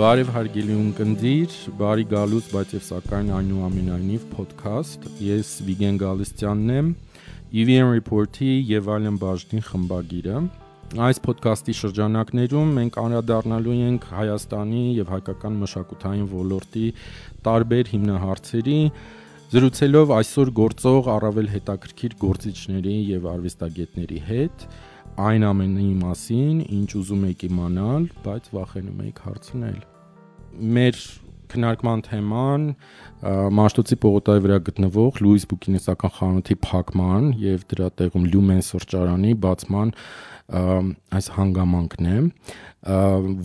Բարև հարգելի ունկնդիր, բարի գալուց, բայց եւ սակայն այնուամենայնիվ podcast։ Ես Վիգեն Գալստյանն եմ, EVN Report-ի եւ այլն բաժնի խմբագիրը։ Այս podcast-ի շրջանակներում մենք անդրադառնալու ենք Հայաստանի եւ հայկական մշակութային ոլորտի տարբեր հիմնահարցերի, զրուցելով այսօր գործող առավել հետաքրքիր գործիչների եւ արվեստագետների հետ։ Այն ամենի մասին, ինչ ուզում եք իմանալ, բայց վախենում եք հարցնել։ Մեր քննարկման թեման Մաշտոցի պողոտայի վրա գտնվող Լուիս բուկինիստական խանութի փակման եւ դրա տեղում Լյումեն սրճարանի բացման այս հանգամանքն է,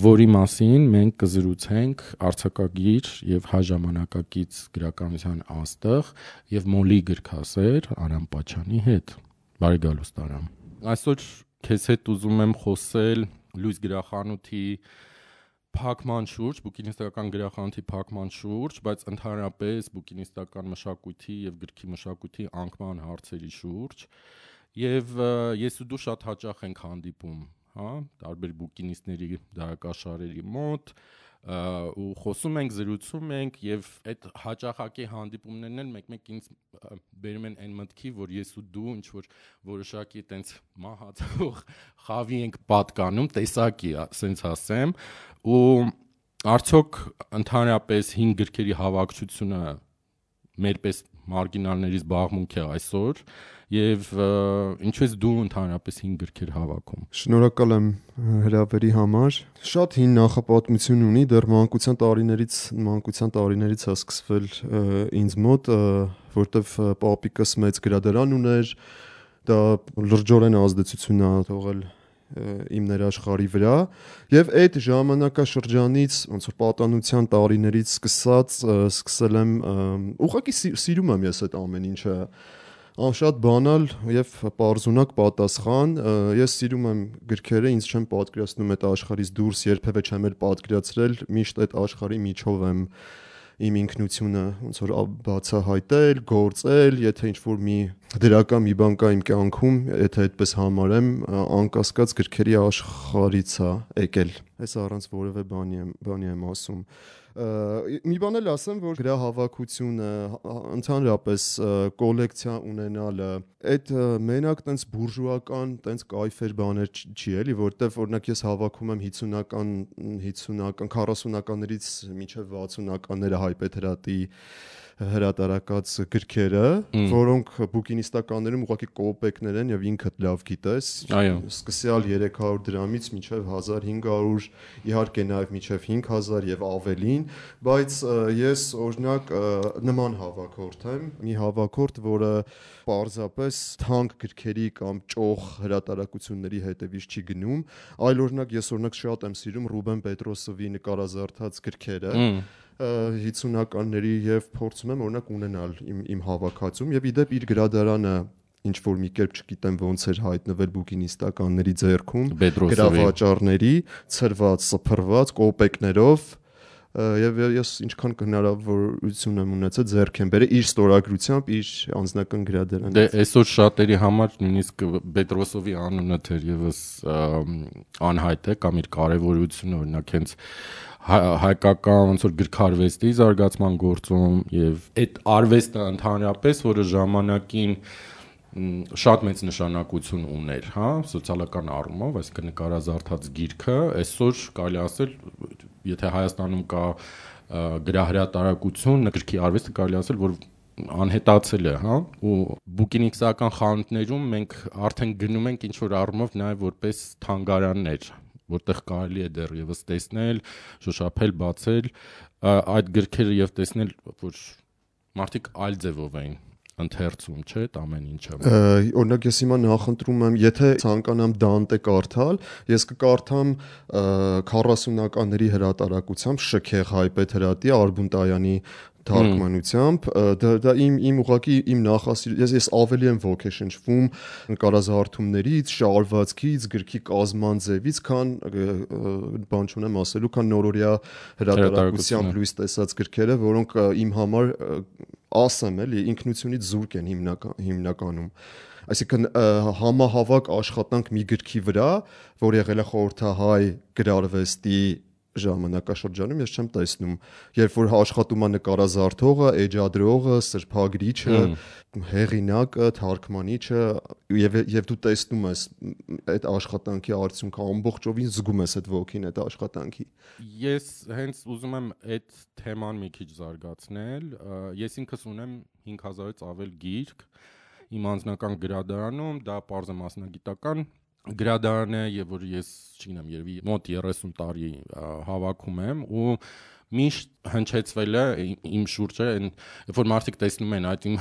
որի մասին մենք կզրուցենք արձակագիր եւ հայ ժամանակակից գրականության աստղ եւ մոլի գրքասեր Արամ Պաչյանի հետ։ Բարի գալուստ Արամ։ Այսօր քեզ հետ ուզում եմ խոսել Լուիս գրախանութի փակման շուրջ, բուկինիստական գրախանութի փակման շուրջ, բայց ընդհանրապես բուկինիստական մշակույթի եւ գրքի մշակույթի անկման հարցերի շուրջ։ Եվ ես ու դու շատ հաճախ ենք հանդիպում, հա, տարբեր բուկինիստների դարակաշարերի մոտ, ու խոսում ենք, զրուցում ենք եւ այդ հաճախակի հանդիպումներն էլ մեկ-մեկ ինձ բերում են այն մտքի, որ ես ու դու ինչ որ որոշակի այտենց մահացող խավի ենք պատկանում, տեսակի, ասենց ասեմ, ու արդյոք ընդհանրապես 5 գրքերի հավաքչությունը մերպես մարգինալների զբաղմունք է այսօր եւ ինչու ես դու ընդհանրապես 5 գրքեր հավաքում։ Շնորհակալ եմ հրավերի համար։ Շատ հին նախապատմություն ունի, դեռ մանկության տարիներից է սկսվել ինձ մոտ, որտեվ պապիկս մեծ գրադարան ուներ, դա լրջորեն ազդեցություն է թողել իմ ներաշխարհի վրա եւ այդ ժամանակաշրջանից ոնց որ պատանության տարիներից սկսել եմ ուղղակի սիրում եմ ես այդ ամեն ինչը շատ բանալ եւ պարզունակ պատասխան ես սիրում եմ գրքերը ինձ չեմ պատկերացնում այդ աշխարհից դուրս երբևէ չեմ էլ պատկերացրել միշտ այդ աշխարհի միջով եմ իմ ինքնությունը ոնց որ բացահայտել, գործել, եթե ինչ-որ մի դրական մի բան կա իմ կյանքում, եթե այդպես համարեմ, անկասկած գրքերի աշխարհից է եկել։ Այս առանց որևէ բանի եմ ասում։ Մի բան էլ ասեմ, որ գրահավաքությունը, ընդհանրապես կոլեկցիա ունենալը, այդ մենակ տենց բուրժուական, տենց կայֆեր բաներ չի էլի, որտեվ օրինակ ես հավաքում եմ 50-ական, 40-ականներից մինչև 60-ականները հայ Պետրատի հրատարակած գրքերը, որոնք բուկինիստականներում ուղղակի կոպեկներ են եւ ինքդ լավ գիտես, սկսյալ 300 դրամից մինչև 1500, իհարկե նաեւ մինչև 5000 եւ ավելին, բայց ես օրինակ նման հավաքորդ եմ, մի հավաքորդ, որը պարզապես թանկ գրքերի կամ ճոխ հրատարակությունների հետևից չի գնում, այլ օրինակ ես շատ եմ սիրում Ռուբեն Պետրոսովի նկարազարդած գրքերը 50-ականների եւ փորձում եմ օրինակ ունենալ իմ հավաքածում եւ իդեպ իր գրադարանը ինչ որ մի կերպ չգիտեմ ոնց էր հայտնվել բուկինիստականների ձեռքում գրավաճառների ցրված, սփռված կոպեկներով եւ ես ինչքան հնարավորություն եմ ունեցել ձեռք եմ բերել իր ստորագրությամբ իր անձնական գրադարանից։ Դե այսօր շատերի համար նույնիսկ Պետրոսովի անունը թերևս անհայտ է կամ իր կարեւորությունը օրինակ հենց հայկական ոնց որ գրքարվեստի զարգացման գործում եւ այդ արվեստը ընդհանրապես, որը ժամանակին շատ մեծ նշանակություն ուներ, հա, սոցիալական առումով, այսինքն նկարազարդած գիրքը, այսօր կարելի ասել, եթե Հայաստանում կա գրահրատարակություն, գրքի արվեստը կարելի ասել, որ անհետացել է, հա, ու բուկինիստական խանութներում մենք արդեն գնում ենք ինչ որ առումով նաեւ որպես թանգարաններ, որտեղ կարելի է դեռևս տեսնել, շոշափել, բացել այդ գրքերը եւ տեսնել, որ մարդիկ այլ ձևով էին ընթերցում, չէ՞, այդ ամեն ինչը։ Օրինակ ես հիմա նախընտրում եմ, եթե ցանկանամ Դանտե կարդալ, ես կկարդամ 40-ականների հրատարակությամբ Շքեղ հայ Պետրատի Արբունտայանի թարգմանությամբ, դա իմ ուղղակի իմ ես ավելի եմ ոգեշնչվում նկարազարդումներից, շարվածքից, գրքի կազման ձևից, քան բան չունեմ ասելու, քան նորորյա հրատարակությամբ լույս տեսած գրքերը, որոնք իմ համար ասեմ էլի ինքնությունից զուրկ են հիմնականում։ Այսինքն համահավաք աշխատանք մի գրքի վրա, որ եղել է խորհրդահայ գրարվեստի ժամանակաշրջանում ես չեմ տեսնում, երբ որ աշխատում է նկարազարդողը, էջադրողը, սրբագրիչը, հեղինակը, թարգմանիչը եւ դու տեսնում ես այդ աշխատանքի արդյունքը ամբողջովին զգում ես այդ ոգին այդ աշխատանքի։ Ես հենց ուզում եմ այդ թեման մի քիչ զարգացնել։ Ես ինքս ունեմ 5000-ից ավել գիրք իմ անձնական գրադարանում, դա պարզ է մասնագիտական գրադարան է եւ որ ես, չգիտեմ, երևի մոտ 30 տարի հավաքում եմ ու միշտ հնչեցվել է իմ շուրջը, երբ որ մարդիկ տեսնում են այդ իմ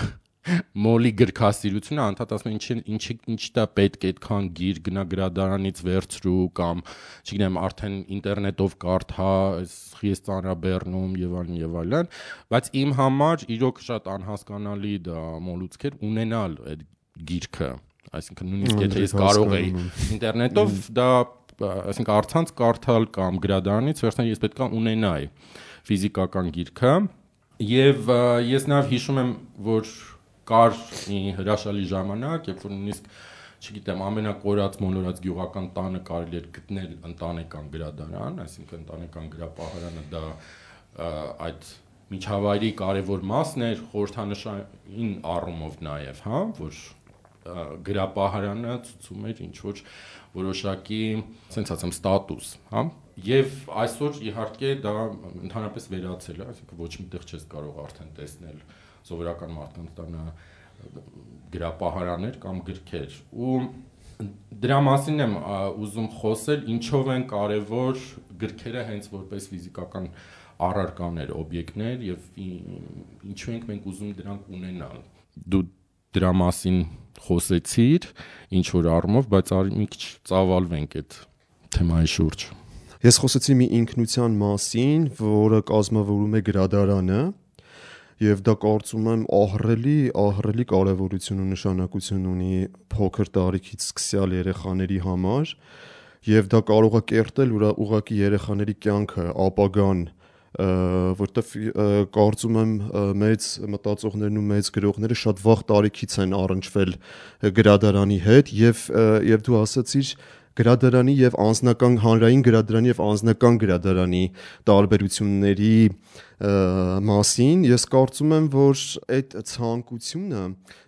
մոլի գրքասիրությունը, անդադ ասում են ինչ դա պետք է այդքան գիր գնա գրադարանից վերցրու կամ, չգիտեմ, արդեն ինտերնետով կարդա, ես ծանրաբեռնում եւ այլն, բայց իմ համար իրոք շատ անհասկանալի դա մոլուցքեր ունենալ այդ գիրքը, այսինքն նույնիսկ եթե ես կարող էի ինտերնետով դա, այսինքն առցանց կարդալ կամ գրադարանից վերցնել, ես պետք է ունենայի ֆիզիկական գիրքը եւ ես նաեւ հիշում եմ, որ կար մի հրաշալի ժամանակ, երբ որ նույնիսկ, չգիտեմ, ամենակորած մոլորած գյուղական տանը կարելի էր գտնել ընտանեկան գրադարան, այսինքն ընտանեկան գրապահարանը դա այդ միջավայրի կարևոր մասն էր, խորհրդանշային առումով նաեւ, հա, որ գրապահարանը ցույցում էր ինչ որ որոշակի, ասենք ասեմ, ստատուս, հա, եւ այսօր իհարկե դա ընդհանրապես վերացել է, այսինքն ոչ միտեղ չես կարող արդեն տեսնել սովորական մարդկանց տանը գրապահարաններ կամ գրքեր ու դրա մասին եմ ուզում խոսել, ինչով են կարևոր գրքերը հենց որպես ֆիզիկական առարկաներ, օբյեկտներ եւ ինչու ենք մենք ուզում դրանք ունենալ։ Դու դրա մասին խոսեցիր ինչ որ առումով, բայց արի մի քիչ ծավալվենք այդ թեմայի շուրջ։ Ես խոսեցի մի ինքնության մասին, որը կազմավորում է գրադարանը եւ դա կարծում եմ ահռելի կարեւորություն ու նշանակություն ունի փոքր տարիքից սկսյալ երեխաների համար եւ դա կարող է կերտել ուղղակի երեխաների կյանքը, ապագան, որտեվ կարծում եմ մեծ մտածողներն ու մեծ գրողները շատ վաղ տարիքից են առնչվել գրադարանի հետ եւ դու ասացիր գրադարանի եւ անձնական հանրային գրադարանի եւ անձնական գրադարանի տարբերությունների մասին ես կարծում եմ, որ այդ ցանկությունը,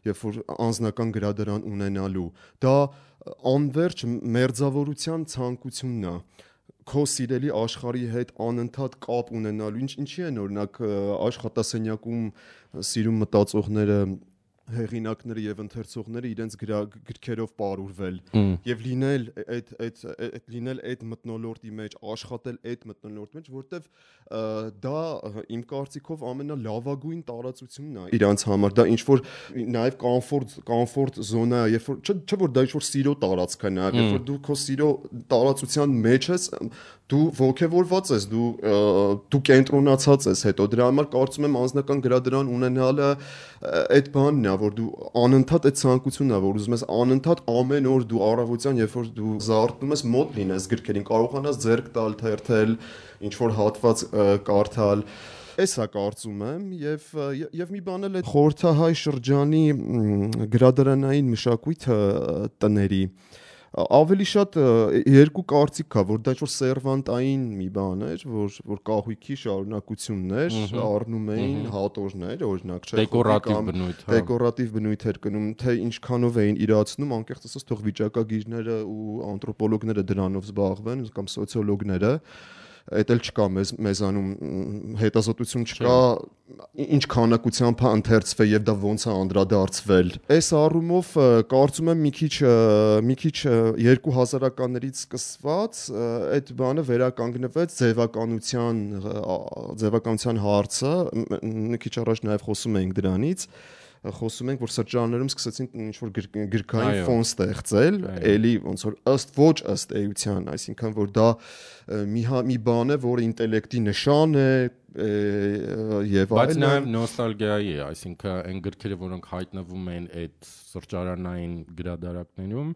երբ որ անձնական գրադարան ունենալու, դա անverջ մերձավորության ցանկությունն է քո սիրելի աշխարհի հետ անընդհատ կապ ունենալու, ինչի են օրինակ աշխատասենյակում սիրում մտածողները հեղինակները եւ ընթերցողները իրենց գրքերով պարուրվել եւ լինել այդ մթնոլորտի մեջ, աշխատել այդ մթնոլորտի մեջ, որտեվ դա իմ կարծիքով ամենալավագույն տարածությունն է իրանց համար, դա ինչ որ նաեւ կոմֆորտ զոնա է, երբ որ չէ որ դա ինչ որ սիրո տարածք է նաեւ, երբ որ դու քո սիրո տարածության մեջ ես, դու ողջավորված ես, դու կենտրոնացած ես հետո դրա համար կարծում եմ անձնական գրադարան ունենալը այդ բանն է, որ դու անընդհատ այդ ցանկությունն է, որ ուզում ես անընդհատ ամեն օր դու առավոտյան, երբ որ դու զարթնում ես, մոտ լինես գրքերին, կարողանաս ձեռք տալ, թերթել, ինչ որ հատված կարդալ, էսա կարծում եմ եւ մի բան էլ է խորհրդահայ շրջանի գրադարանային մշակույթը տների ավելի շատ երկու կարծիք կա, որ դա ինչ-որ սերվանտային մի բան էր, որ կահույքի շարունակությունն էր, առնում էին հատորներ, օրինակ, չէ, դեկորատիվ բնույթ էր կնում, թե ինչքանով էին իրացնում, անկեղծ ասած, թող վիճակագիրները ու անթրոպոլոգները դրանով զբաղվեն կամ սոցիոլոգները, այդ էլ չկա մեզանում հետազոտություն չկա, ինչ քանակությամբ է ընթերցվել եւ դա ոնց է անդրադարձվել։ Այս առումով կարծում եմ մի քիչ 2000-ականներից սկսված այդ բանը վերականգնվեց ձևականության հարցը, մի քիչ առաջ նաեւ խոսում էինք դրանից, խոսում ենք, որ սրճարաններում սկսեցին ինչ-որ գրքային ֆոն ստեղծել, էլի ոնց որ ըստ էության, այսինքն որ դա մի բան է, որը ինտելեկտի նշան է եւ այլն։ Բայց նաեւ նոստալգիայի է, այսինքն այն գրքերը, որոնք հայտնվում են այդ սրճարանային գրադարաններում,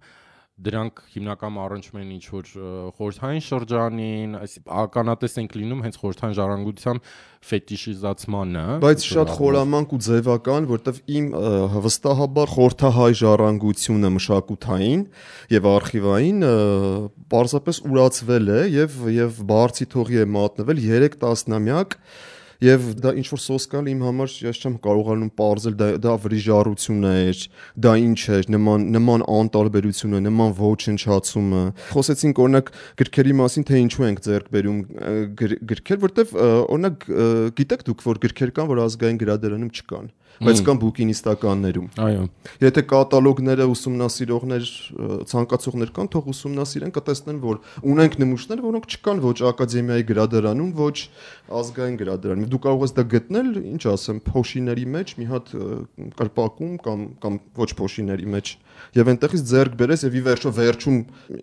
դրանք հիմնական առնչվում են ինչ որ խորհրդային շրջանին, ականատես ենք լինում հենց խորհրդային ժառանգության ֆետիշիզացմանը, բայց շատ խորամանկ ու ձևական, որտեվ իմ վստահաբար խորհրդահայ ժառանգությունը մշակութային եւ արխիվային պարզապես ուրացվել է եւ բարձի թողի է մատնվել 3 տասնամյակ. Եվ դա ինչ որ սոսկալ իմ համար ես չեմ կարողանում պարզել դա վրիժառություն էր, դա ինչ էր, նման անտարբերությունը, նման ոչնչացումը։ Խոսեցինք օրինակ գրքերի մասին, թե ինչու ենք ձեռք բերում գրքեր, որտեվ օրինակ գիտեք դուք, որ գրքեր կան, որ ազգային գրադարանում չկան, բայց կան բուկինիստականներում։ Այո։ Եթե կատալոգները ուսումնասիրողներ, ցանկացողներ կան, թող ուսումնասիրեն, կտեսնեն, որ ունենք նմուշներ, որոնք չկան ոչ ակադեմիայի գրադարանում, ոչ ազգային գրադարանում։ Դու կարող ես դա գտնել, ինչ ասեմ, փոշիների մեջ, մի հատ կրպակում կամ ոչ փոշիների մեջ, եւ այնտեղից ձեռք բերես եւ ի վերջո վերջում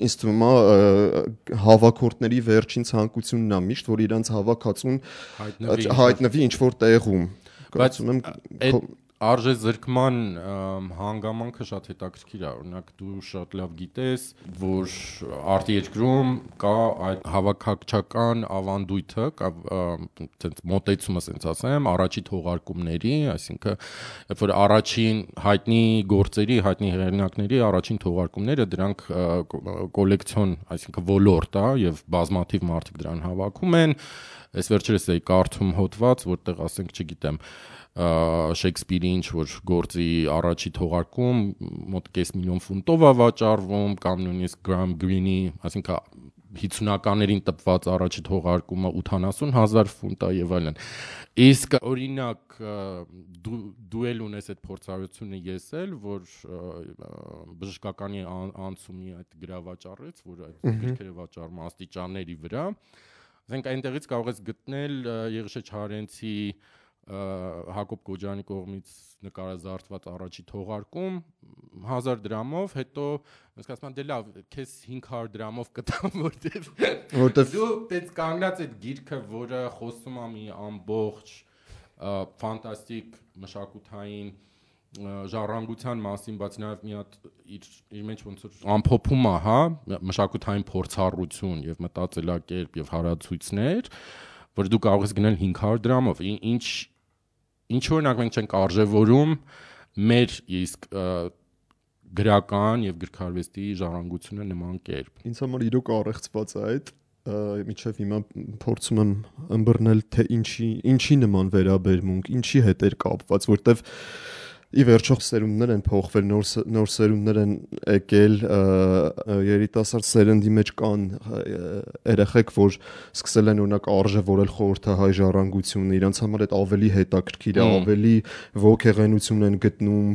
ինձ թվում է հավաքորդների վերջին ցանկությունն է միշտ, որ իրանց հավաքածուն հայտնվի ինչ որ տեղում։ Կարծում եմ այդ արժե զրկման հանգամանքը շատ հետաքրքիր է, օրինակ դու շատ լավ գիտես, որ արտերկրում կա այդ հավաքակչական ավանդույթը, այդպես մոտեցումը, ասենց ասեմ, առաջի թողարկումների, այսինքն երբ որ առաջին հայտնի գործերի, հայտնի հեղինակների առաջին թողարկումները դրանք կոլեկցիոն, այսինքն ոլորտ է եւ բազմաթիվ մարդիկ դրան հավաքում են։ Այս վերջերս էի կարդում հոդված, որտեղ ասենք, չգիտեմ, Շեքսպիրի ինչ որ գործի առաջի թողարկում մոտ 500,000 ֆունտով է վաճառվում, կամ նույնիսկ Գրամ Գրինի, այսինքն 50-ականներին տպված առաջի թողարկումը 80,000 ֆունտ է եւ այլն։ Իսկ օրինակ դու էլ ունես այդ փորձառությունը, ես էլ, որ բժշկականի անցումի այդ գրավաճառից, որ այդ գրքերը վաճառում աստիճանների վրա, ասենք այնտեղից կարող ես գտնել Եղիշե Չարենցի Հակոբ Կոջյանի կողմից նկարազարդված առաջի թողարկում 1000 դրամով, հետո ասես ասում դե լավ, քեզ 500 դրամով կտամ, որտեվ դու դες կանգնած այդ գիրքը, որը խոսում է մի ամբողջ ֆանտաստիկ մշակութային ժառանգության մասին, բայց նաև մի հատ իր մեջ ոնց որ ամփոփում է, հա, մշակութային փորձառություն եւ մտածելակերպ եւ հարացույցներ, որ դու կարող ես գնել 500 դրամով, ինչ օրինակ մենք չենք արժևորում մեր իսկ գրական եւ գրքարվեստի ժառանգությունը նման կերպ։ Ինձ համար իրոք առեղծված է այդ, միջև հիմա փորձում եմ ըմբռնել, թե ինչի նման վերաբերմունք, ինչի հետ էր կապված, որտեվ ի վերջո սերունդներ են փոխվել, նոր սերունդներ են եկել, երիտասարդ սերնդի մեջ կան երեխեք, որ սկսել են օրինակ արժևորել խորհրդահայ ժառանգությունը, իրանց համար այդ ավելի հետաքրքիր է, ավելի ոգեղենություն են գտնում,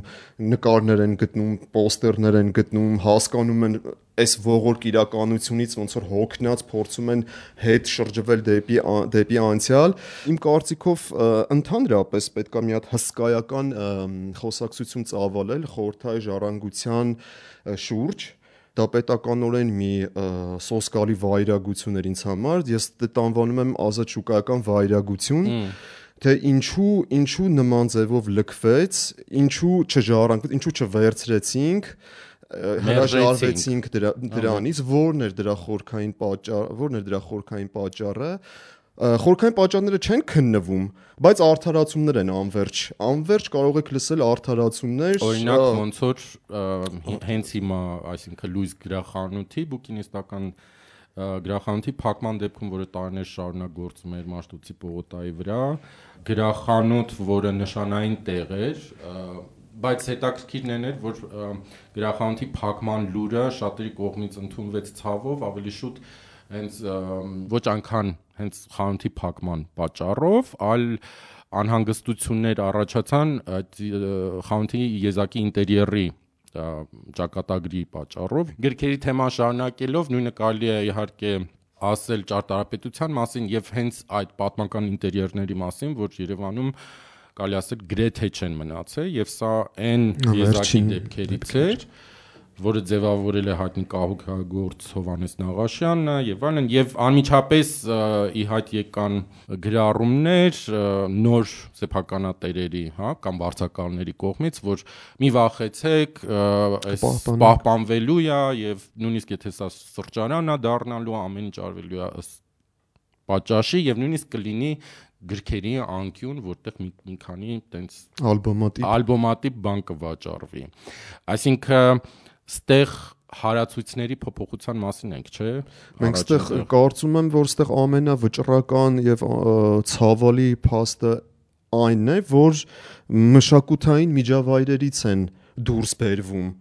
նկարներ են գտնում, պոստերներ են գտնում, հասկանում են այս ողորկ իրականությունից ոնց որ հոգնած փորձում են հետ շրջվել դեպի անցյալ։ Իմ կարծիքով ընդհանրապես պետք է մի հատ հսկայական խոսակցություն ծավալել խորհրդահայ ժառանգության շուրջ, դա պետականորեն մի սոսկալի վայրագություն էր ինձ համար, ես դա անվանում եմ ազատ շուկայական վայրագություն, թե ինչու նման ձևով լքվեց, ինչու չժառանգվեց, ինչու չվերցրեցինք, հրաժարվեցինք դրանից, որն էր դրա խորքային պատճառը։ Խորքային պատճառները չեն քննվում, բայց արդարացումներ են անverջ կարող եք լսել արդարացումներ, օրինակ ոնց որ հենց հիմա, այսինքն Լուիս գրախանութի բուկինիստական գրախանութի փակման դեպքում, որը տարիներ շարունակ գործում էր Մաշտոցի պողոտայի վրա, գրախանութ, որը նշանային տեղ էր, բայց հետաքրքիրն էր, որ գրախանութի փակման լուրը շատերի կողմից ընդունվեց ցավով, ավելի շուտ հենց ոչ այնքան հենց խանութի փակման պատճառով, այլ անհանգստություններ առաջացան այդ խանութի եզակի ինտերիերի ճակատագրի պատճառով։ Գրքերի թեման շարունակելով նույնը կարելի է իհարկե ասել ճարտարապետության մասին եւ հենց այդ պատմական ինտերիերների մասին, որ Երևանում կարելի ասել գրեթե չեն մնացել, եւ սա այն եզակի դեպքերից էր, որը ձևավորել է հայտնի կահույքագործ Հովհաննես Նաղաշյանը եւ այլն, եւ անմիջապես ի հայտ եկան գրառումներ նոր սեփականատերերի, հա, կամ վարձակալների կողմից, որ մի վախեցեք, այս պահպանվելու է եւ նույնիսկ եթե սա սրճարան է դառնալու, ամեն ինչ արվելու է ըստ պատճաշի եւ նույնիսկ կլինի գրքերի անկյուն, որտեղ մի քանի տենց ալբոմատիպ բան կվաճառվի։ Այսինքն ստեղ հարացույցների փոփոխության մասին ենք, չէ՞։ Մենք ստեղ կարծում եմ, որ ստեղ ամենավճռական եւ ցավալի փաստը այնն է, որ մշակութային միջավայրերից են դուրս բերվում։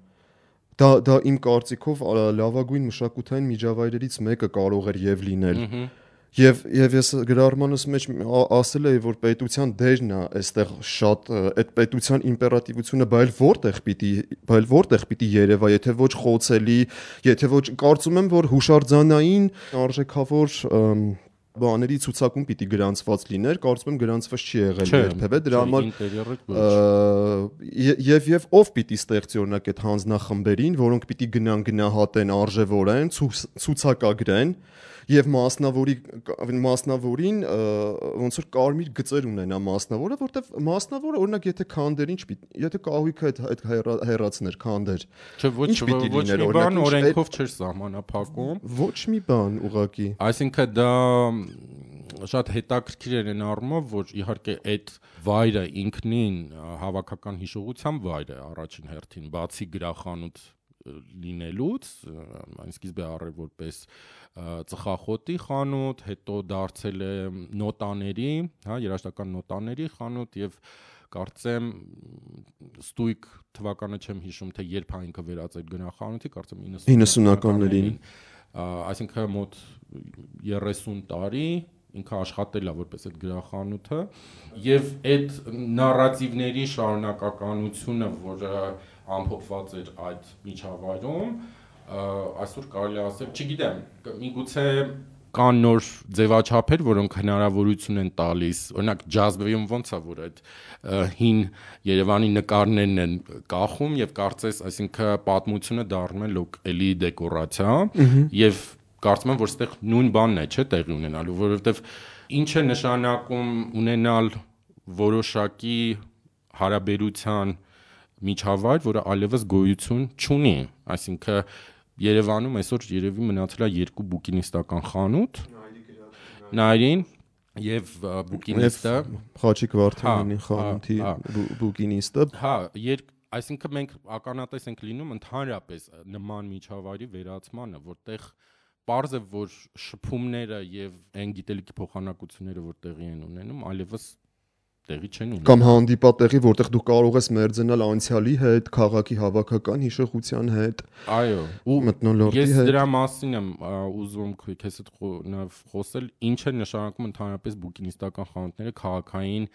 Դա իմ կարծիքով լավագույն մշակութային միջավայրերից մեկը կարող էր եւ լինել։ Եվ ես գրառմանս մեջ ասել էի, որ պետության դերն է այստեղ շատ այդ պետության իմպերատիվությունը բայց որտեղ պիտի երևա, եթե ոչ խոցելի, եթե ոչ կարծում եմ, որ հուշարձանային արժեքավոր բաների ցուցակում պիտի գրանցված լիներ, կարծում եմ գրանցված չի եղել երբևէ, դրա համար եւ ով պիտի ստեղծի օրինակ այդ հանձնախմբերին, որոնք պիտի գնահատեն արժևորեն, ցուցակագրեն եւ մասնավորին ոնց որ կարմիր գծեր ունենա մասնավորը, որտեվ մասնավորը օրինակ եթե քանդեր եթե կահույքը այդ հեռացներ քանդեր, ինչ պիտի լիներ, օրինակ օրենքով չէր սահմանափակում, ոչ մի բան ուղղակի։ Այսինքն դա շատ հետաքրքիր էր այն առումով, որ իհարկե այդ վայրը ինքնին հավաքական հիշողության վայր է առաջին հերթին, բացի գրախանութ լինելուց, այն սկիզբը առել որպես ծխախոտի խանութ, հետո դարձել է նոտաների, հա, երաժշտական նոտաների խանութ եւ կարծեմ ստույգ թվականը չեմ հիշում, թե երբ ինքը վերածել գրախանութի, կարծեմ 90-ականներին, այսինքն մոտ 30 տարի ինքը աշխատել է որպես այդ գրախանութը եւ այդ նարատիվների շարունակականությունը, որը ամփոփված էր այդ միջավայրում, այսօր կարելի է ասել, չգիտեմ, միգուցե կան նոր ձևաչափեր, որոնք հնարավորություն են տալիս, օրինակ ջազբեյում ոնց է, որ այդ հին Երևանի նկարներն են կախում եւ կարծես, այսինքն պատմությունը դառնում է լոկալի դեկորացիա եւ կարծում եմ, որ այստեղ նույն բանն է, չէ, տեղի ունենալու, որովհետեւ ինչ է նշանակում ունենալ որոշակի հարաբերության միջավայր, որը այլևս գոյություն չունի, այսինքն Երևանում այսօր երևի մնացել է 2 բուկինիստական խանութ, Նայրին եւ բուկինիստը, Խաչիկ Վարդանյանի խանութի բուկինիստը, հա, այսինքն մենք ականատես ենք լինում ընդհանրապես նման միջավայրի վերացմանը, որտեղ պարզ է, որ շփումները եւ այն գիտելիքի փոխանակությունները, որ տեղի են ունենում, այլևս տեղի չեն ունենում։ Կամ հանդիպատեղի, որտեղ դու կարող ես մերձենալ անցյալի հետ, քաղաքի հավաքական հիշողության հետ։ Այո, ու մթնոլորտի հետ։ Ես դրա մասին եմ ուզում քեզ հետ խոսել, ինչ է նշանակում ընդհանրապես բուկինիստական խանութները քաղաքային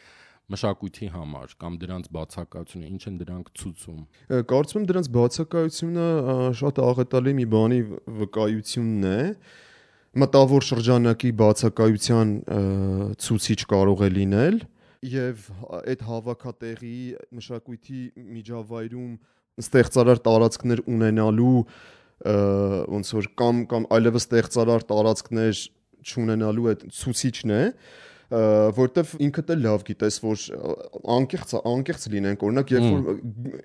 մշակույթի համար կամ դրանց բացակայությունը, ինչ են դրանք ցույցում։ Կարծում եմ դրանց բացակայությունը շատ աղետալի մի բանի վկայությունն է։ Մտավոր շրջանակի բացակայության ցուցիչ կարող է լինել եւ այդ հավաքատեղի մշակույթի միջավայրում ստեղծարար տարածքներ ունենալու ոնց որ կամ այլևս ստեղծարար տարածքներ չունենալու այդ ցուցիչն է, որտեվ ինքդ էլ լավ գիտես, որ անկեղծ լինենք, օրինակ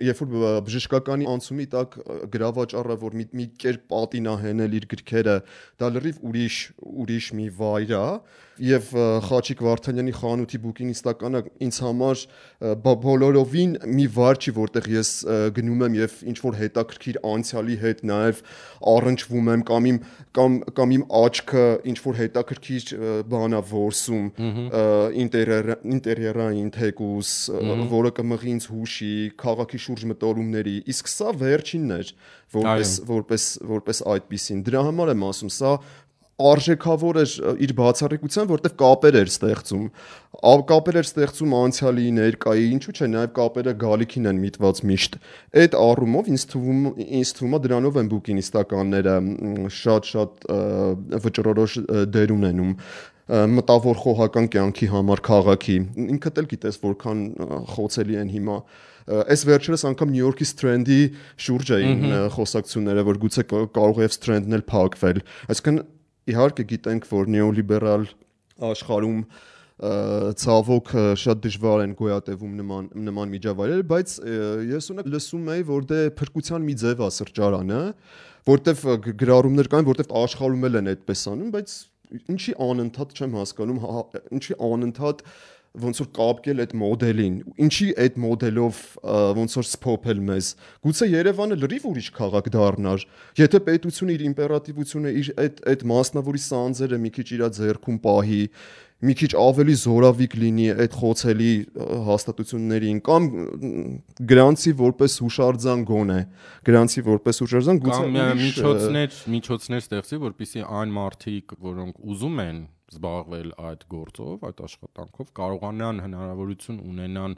երբ որ բժշկականի անցումի տակ գրավաճառը, որ մի կերպ պատին է հենել իր գրքերը, դա լրիվ ուրիշ մի վայր է, եւ Խաչիկ Վարդանյանի խանութի բուկինիստականը ինձ համար բոլորովին մի վայր չի, որտեղ ես գնում եմ եւ ինչ որ հետաքրքիր անցյալի հետ նաեւ առնչվում եմ կամ իմ աչքը ինչ որ հետաքրքիր բան է որսում ինտերիերային թեկուս, որը կմղի ինձ հուշի, քաղաքի շուրջ մտորումների, իսկ սա վերջինն էր, որպես այդպիսին։ Դրա համար եմ ասում, սա արժեքավոր էր իր բացառիկության, որտեղ կապեր էր ստեղծում անցյալի, ներկայի, ինչու՞ չէ, նաև կապերը գալիքին են միտված միշտ։ Այդ առումով ինձ թվում է դրանով են բուկինիստականները շատ վճռորոշ դեր ունենում։ մտավոր խոհական կյանքի համար քաղաքի։ Ինքդ էլ գիտես որքան խոցելի են հիմա։ Այս վերջերս անգամ Նյու Յորքի Strand-ի շուրջ էին խոսակցությունները, որ գուցե կարող է Strand-ն էլ փակվել։ Այսինքն իհարկե գիտենք, որ նեոլիբերալ աշխարհում ցավոք շատ դժվար են գոյատևում նման միջավայրեր, բայց ես ունեք լսում էի, որ դե փրկության մի ձև է սրճարանը, որտեվ գրառումներ կային, որտեվ աշխարհում էլ են այդպես անում, բայց ինչի անընդհատ չեմ հասկանում, ինչի անընդհատ ոնց որ կապկել այդ մոդելին, ինչի այդ մոդելով ոնց որ սփոփել մեզ։ Գուցե Երևանը լրիվ ուրիշ քաղաք դառնար, եթե պետությունը իր իմպերատիվությունը, իր այդ մասնավորի սանձերը մի քիչ իր ձեռքում պահի, մի քիչ ավելի զորավիկ լինի այդ խոցելի հաստատություններին կամ գրանցի որպես հուշարձան գոնե, գրանցի որպես հուշարձան գուցե միջոցներ ստեղծի, որպեսզի այն մարդիկ, որոնք ուզում են զբաղվել այդ գործով, այդ աշխատանքով, կարողանան հնարավորություն ունենան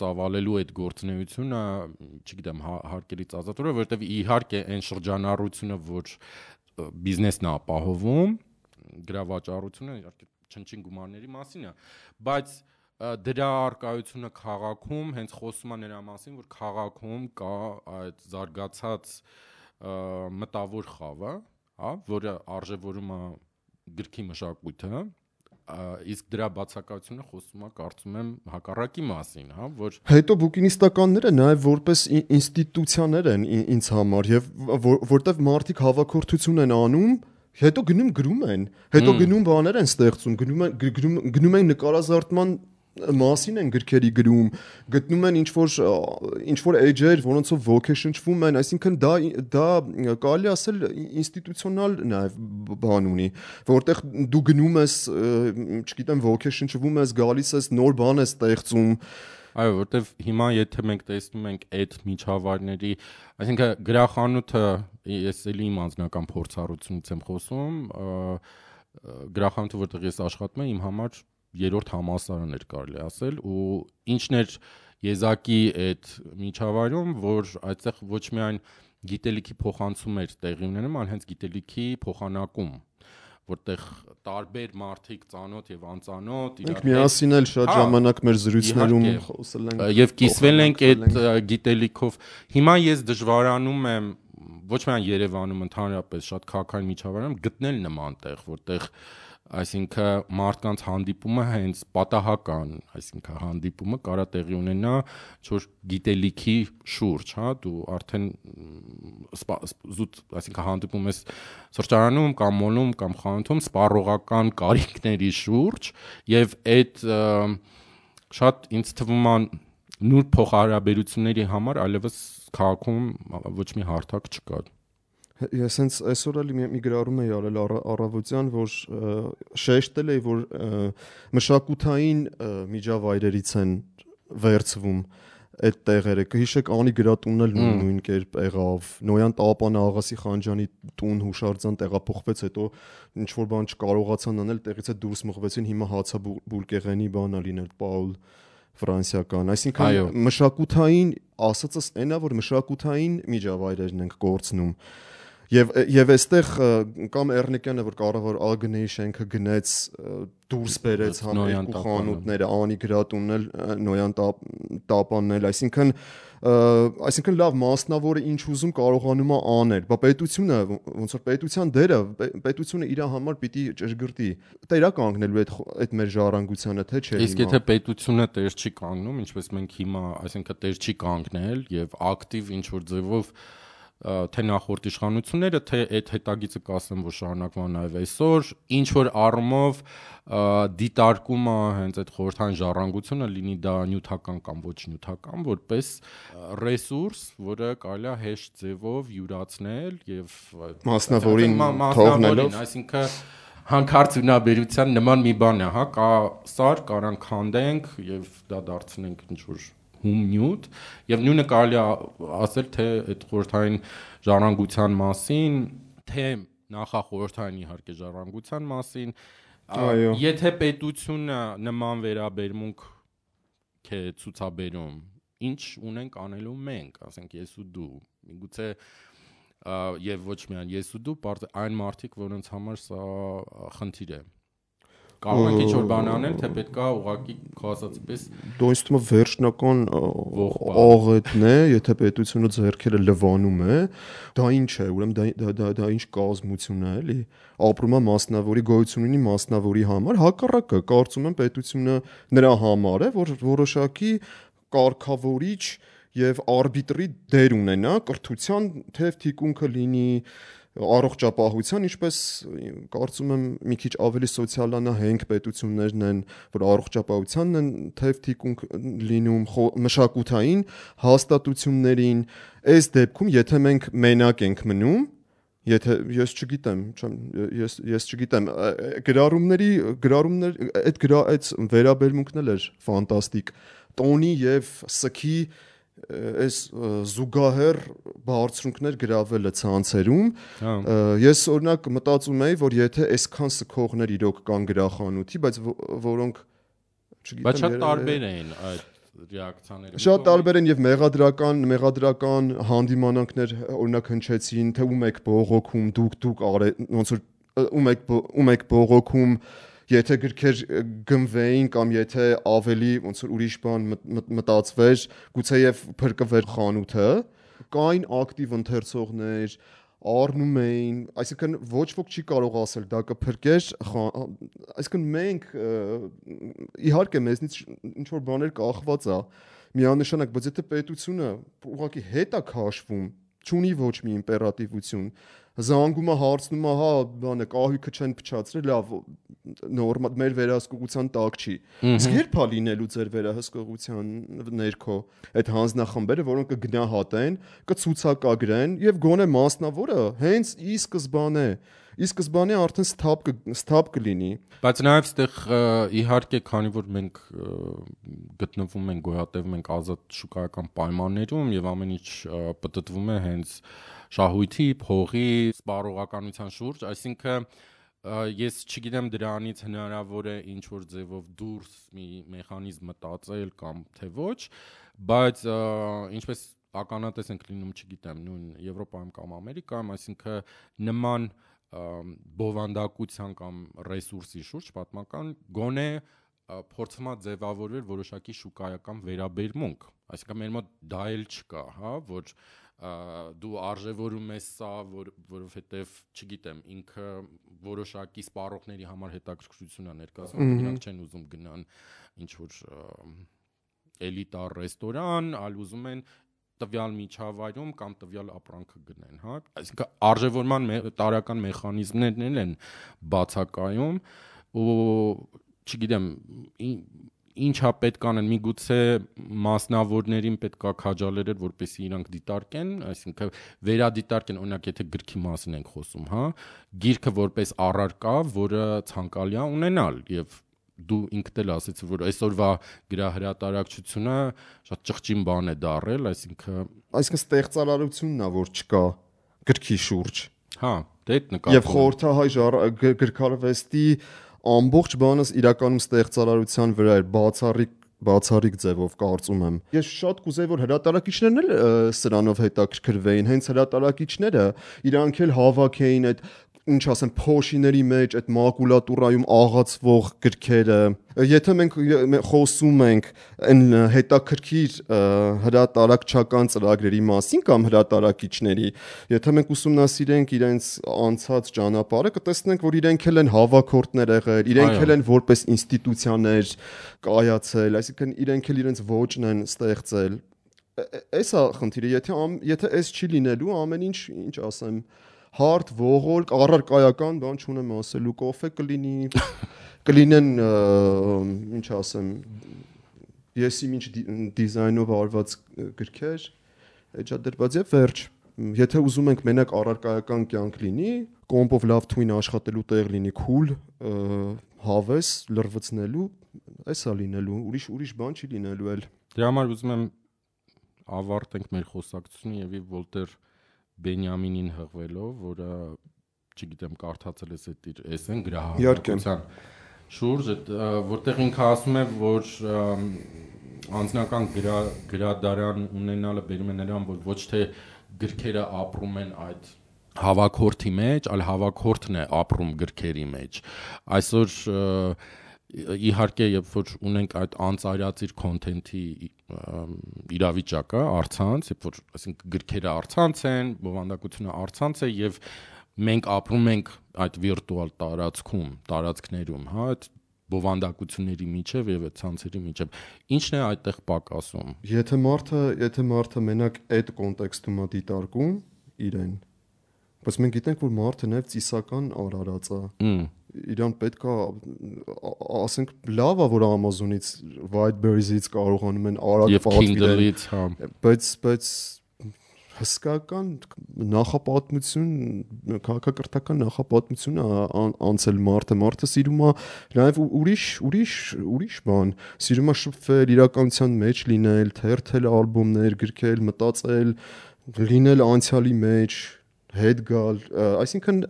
ծավալելու այդ գործունեությունը, չգիտեմ, հարկերից ազատորը, որովհետև իհարկե այն շրջանառությունը, որ բիզնեսն է ապահովում, գրավաճառությունը իհարկե չնչին գումարների մասին է, բայց դրա արկայությունը քաղաքում հենց խոսում է նրա մասին, որ քաղաքում կա այդ զարգացած մտավոր խավը, հա, որը արժևորում է գրքի մշակույթը, իսկ դրա բացակայությունը խոսում է, կարծում եմ, հակառակի մասին, հա, որ հետո բուկինիստականները նաև որպես ինստիտուցիաներ են ինձ համար եւ որտեվ մարդիկ հավաքորդություն են անում, հետո գնում գրում են, հետո գնում բաներ են ստեղծում, գնում են նկարազարդման մասին են գրքերի գրում, գտնում են ինչ որ էջեր, որոնցով ոգեշնչվում են, այսինքն դա կարելի ասել ինստիտուցիոնալ նաև բան ունի, որտեղ դու գնում ես, չգիտեմ, ոգեշնչվում ես, գալիս ես, նոր բան ես ստեղծում։ Այո, որտեվ հիմա եթե մենք տեսնում ենք այդ միջավայրների, այսինքն գրախանութը, ես էլի իմ անձնական փորձառությունից եմ խոսում, գրախանութը, որտեղ ես աշխատում եմ, իմ համար երրորդ համալսարան էր կարելի ասել, ու ինչն էր եզակի այդ միջավայրում, որ այդտեղ ոչ միայն գիտելիքի փոխանցում էր տեղի ունենում, այլ հենց գիտելիքի փոխանակում, որտեղ տարբեր մարդիկ ծանոթ եւ անծանոթ իրար հետ միասին էլ շատ ժամանակ մեր զրույցներում խոսել ենք եւ կիսվել ենք այդ գիտելիքով։ Հիմա ես դժվարանում եմ ոչ միայն Երևանում, ընդհանրապես շատ քաղաքային միջավայրում գտնել նման տեղ, որտեղ այսինքն մարդկանց հանդիպումը հենց պատահական, այսինքն հանդիպումը կարա տեղի ունենա ինչ-որ գիտելիքի շուրջ, հա, դու արդեն զուտ, այսինքն հանդիպում ես սրճարանում կամ մոլում կամ խանութում սպառողական կարիքների շուրջ եւ այդ շատ ինձ թվում է նուրբ փոխհարաբերությունների համար այլևս քաղաքում ոչ մի հարթակ չկա։ Ես հենց այսօր էլ մի գրառում էի արել առավոտյան, որ շեշտել էի, որ մշակութային միջավայրերից են վերցվում այդ տեղերը։ Կհիշեք Անի գրատունն էլ նույն կերպ եղավ, Նոյան Տապանը Աղասի Խանջյանի տուն հուշարձան տեղափոխվեց, հետո ինչ որ բան չկարողացան անել, տեղից է դուրս մղվեցին, հիմա հացաբուլկեղենի բանա լինել Պաուլ ֆրանսիական, այսինքն մշակութային ասածս այնա, որ մշակութային միջավայրերն ենք կորցնում։ Եվ այստեղ կամ Էռնեկյանը, որ կառավար ԱԳՆ-ի շենքը գնեց, դուրս բերեց համ երկու խանութները, Անի գրատունն էլ, Նոյան Տապանն էլ, այսինքն լավ մասնավորը ինչ ուզում կարողանում է անել, բա պետությունը ոնց որ պետության դերը, պետությունը իր համար պիտի ճշգրտի, տերա կանգնելու այդ մեր ժառանգությանը, թե չէ։ Իսկ եթե պետությունը տեր չի կանգնում, ինչպես մենք հիմա, այսինքն տեր չի կանգնել եւ ակտիվ ինչ որ ձևով թե նախորդ իշխանությունները, թե այդ հետագիծը կասեմ, որ շարունակվում է նաև այսօր, ինչ որ առումով դիտարկումը հենց այդ խորհրդային ժառանգությունը, լինի դա նյութական կամ ոչ նյութական, որպես ռեսուրս, որը կարելի է հեշտ ձևով յուրացնել եւ մասնավորին թողնելով, այսինքն հանկարծ ունաբերության նման մի բան է, հա, կա սար, կարան քանդենք եւ դա դարձնենք ինչ որ նյութ եւ նույնը կարելի ասել թե այդ խորհրդային ժառանգության մասին, թե նախախորհրդային իհարկե ժառանգության մասին, եթե պետությունը նման վերաբերմունք է ցուցաբերում, ինչ ունենք անելու մենք, ասենք ես ու դու, միգուցե եւ ոչ միայն ես ու դու, այն մարդիկ, որոնց համար սա խնդիր է։ կարող ենք ինչ-որ բան անել, թե պետքա ուղղակի քո ասածի պես դու ինձ թվում է վերջնական աղետն է, եթե պետությունը ձեռքերը լվանում է, դա ինչ է, ուրեմն դա ինչ կազմություն է, էլի։ Ապրում է մասնավորի գոյություն ունի մասնավորի համար, հակառակը, կարծում եմ պետությունը նրա համար է, որ որոշակի կարգավորիչ եւ արբիտրի դեր ունենա կրթության թեև թիկունքը լինի առողջապահության, ինչպես կարծում եմ մի քիչ ավելի սոցիալանահենք պետություններն են, որ առողջապահությանն են թեև թիկունք լինում, մշակութային հաստատություններին, այս դեպքում եթե մենք մենակ ենք մնում, եթե ես չգիտեմ, գրառումներ այդ վերաբերմունքն էլ էր ֆանտաստիկ, տոնի եւ սքի այս զուգահեռ բարձունքներ գրավելը ցանցերում ես օրինակ մտածում եի որ եթե այսքան սքողներ իրոք կան գրախանութի բայց որոնք չգիտեմ բայց շատ տարբեր էին այդ ռեակցիաները շատ տարբեր են եւ մեղադրական հանդիմանանքներ օրինակ հնչեցին թե ում եք բողոքում դուք ոնց որ ում եք բողոքում եթե գրքեր գնվեին կամ եթե ավելի ոնց որ ուրիշ բան մտածվեր, գուցեև փրկվեր խանութը, կային ակտիվ ընթերցողներ, առնում էին, այսինքն ոչ ոք չի կարող ասել դա կփրկեր, այսինքն մենք իհարկե մեզնից ինչ որ բաներ կախված է, միանշանակ, բայց եթե պետությունը ուղղակի հետ է քաշվում, չունի ոչ մի իմպերատիվություն, զանգում է հարցնում է, հա, բանը կահույքը չեն փչացրել, լավ, նորմալ մեր վերահսկողության տակ չի։ Իսկ երբ է լինելու ձեր վերահսկողության ներքո այդ հանձնախմբերը, որոնք կգնահատեն, կցուցակագրեն եւ գոնե մասնավորը հենց ի սկզբանե արդեն սթափ կլինի։ Բայց նաեւ այդտեղ իհարկե, քանի որ մենք գտնվում ենք, գոյատևում ենք ազատ շուկայական պայմաններում եւ ամեն ինչ պտտվում է հենց շահույթի, փողի, սպառողականության շուրջ, այսինքն ես չգիտեմ դրանից հնարավոր է ինչ որ ձևով դուրս մի մեխանիզմ մտածել կամ թե ոչ, բայց ինչպես ականատես ենք լինում, չգիտեմ, նույն Եվրոպայում կամ Ամերիկայում, այսինքն նման բովանդակության կամ ռեսուրսի շուրջ պատմական գոնե փորձում է ձևավորվել որոշակի շուկայական վերաբերմունք, այսինքն մեր մոտ դա էլ չկա, հա, որ դու արժևորում ես սա, որովհետև, չգիտեմ, ինքը որոշակի սպառողների համար հետաքրքրություն է ներկայացնում, նրանք չեն ուզում գնան ինչ-որ էլիտար ռեստորան, այլ ուզում են տվյալ միջավայրում կամ տվյալ ապրանքը գնեն, հա, այսինքն արժևորման տարական մեխանիզմներն են բացակայում ու չգիտեմ ինչա պետք անել, միգուցե մասնավորներին պետք է քաջալերել, որպեսզի իրանք դիտարկեն, այսինքն վերադիտարկեն, օրինակ եթե գրքի մասին ենք խոսում, հա, գիրքը որպես առարկա, որը ցանկալի է ունենալ եւ դու ինքդ էլ ասեցի, որ այսօրվա գրահրատարակչությունը շատ ճղճին բան է դարել, այսինքն ստեղծարարությունն է, որ չկա գրքի շուրջ։ Հա, դա այդ նկատում։ Եվ խորհրդահայ գրքարվեստի ամբողջ բանս իրականում ստեղծարարության վրա էր բացառիկ ձևով կարծում եմ։ Ես շատ կուզեի որ հրատարակիչներն էլ սրանով հետաքրքրվեին, հենց հրատարակիչները իրանք էլ հավաքեին այդ ինչ ասեմ փոշիների մեջ այդ մակուլատուրայում աղացվող գրքերը։ Եթե մենք խոսում ենք այն հետաքրքիր հրատարակչական ծրագրերի մասին կամ հրատարակիչների, եթե մենք ուսումնասիրենք իրենց անցած ճանապարհը, կտեսնենք, որ իրենք էլ են հավաքորդներ եղել, իրենք էլ են որպես ինստիտուցիաներ կայացել, այսինքն իրենք էլ իրենց ոճն են ստեղծել։ Էսա խնդիրը, եթե այս չի լինելու, ամեն ինչ ասեմ հարթ, ողորկ, առարկայական բան չունեմ ասելու, կոֆե կլինեն, ինչ ասեմ, եսի ինչ դիզայնով արված գրքեր, էջադրված եւ վերջ։ Եթե ուզում ենք մենակ առարկայական կյանք լինի, կոմպով լավ թույն աշխատելու տեղ լինի, քուլ, հավես, լրվցնելու, էսա լինելու, ուրիշ բան չի լինելու էլ։ Դրա համար ուզում եմ ավարտենք մեր խոսակցությունը եւ Վոլտեր Բենյամինին հղվելով, որը չգիտեմ կարդացել ես այդ իր էսեն գրահարության շուրջ, որտեղ ինքը ասում է, որ անձնական գրադարան ունենալը բերում է նրան, որ ոչ թե գրքերը ապրում են այդ հավաքորդի մեջ, այլ հավաքորդն է ապրում գրքերի մեջ։ Այսօր իհարկե երբ որ ունենք այդ անծայրածիր կոնտենթի իրավիճակը, առցանց, երբ որ այսինքն գրքերը առցանց են, բովանդակությունը առցանց է եւ մենք ապրում ենք այդ վիրտուալ տարածքներում, հա, այդ բովանդակությունների միջև եւ այդ ցանցերի միջև։ Ինչն է այդտեղ պակասում։ Եթե մարդը մենակ այդ կոնտեքստում է դիտարկում իրեն, բայց մենք գիտենք, որ մարդը նաև ծիսական արարած է։ Իրան պետք է ասենք լավ է, որ Amazon-ից Whiteberries-ից կարողանում են արագ պատվիրել, բայց հսկական նախապատմություն, քաղաքակրթական նախապատմություն անցել մարդը սիրում է նաև ուրիշ բան, սիրում է շփվել, իրականության մեջ լինել, թերթել ալբոմներ, գրքել, մտածել, լինել անցյալի մեջ, հետ գալ, այսինքն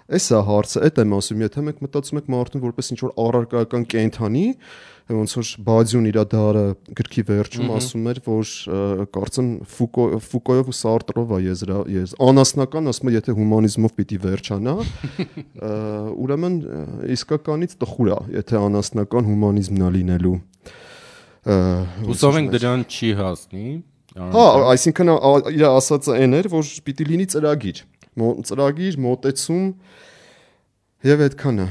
էսա հարցը, այդ եմ ասում, եթե մենք մտածում ենք մարդուն որպես ինչ-որ առարկայական կենդանի, ոնց որ Բադյուն իր դարը գրքի վերջում ասում էր, որ կարծեմ Ֆուկոյով ու Սարտրով է անասնական, ասում է, եթե հումանիզմով պիտի վերջանա, ուրեմն իսկականից տխուր է, եթե անասնական հումանիզմն է լինելու։ Հուսով ենք դրան չի հասնի։ Հա, այսինքն իր ասածը այն էր, որ պիտի լինի ծրագիր, մոտեցում եւ այդքանը։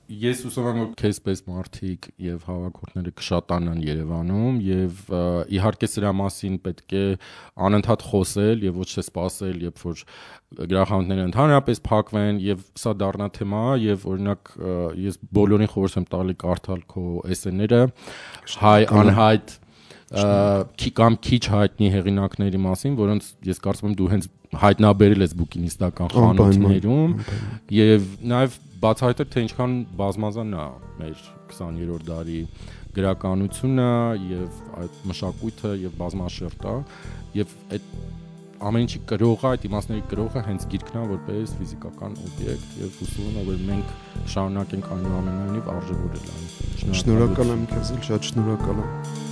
Ես հուսով եմ, որ քեզպես մարդիկ եւ հավաքորդները կշատանան Երևանում եւ իհարկե սրա մասին պետք է անընդհատ խոսել եւ ոչ թե սպասել, երբ որ գրախանութները ընդհանրապես փակվեն եւ սա դառնա թեմա եւ օրինակ ես բոլորին խորհուրդ եմ տալի կարդալ քո էսսեները հայ անհայտ կամ քիչ հայտնի հեղինակների մասին, որոնց ես կարծում եմ դու հենց հայտնաբերել ես բուկինիստական խանութներում եւ նաեւ բացահայտել թե ինչքան բազմազան է մեր 20-րդ դարի գրականությունը եւ այդ մշակույթը եւ բազմաշերտ է եւ այդ ամեն ինչի կրողը, այդ իմաստների կրողը հենց գիրքն է որպես ֆիզիկական օբյեկտ եւ հուսում եմ որ մենք շարունակենք այնուամենայնիվ արժևորել այն։ Շնորհակալ եմ քեզ, շատ շնորհակալ եմ։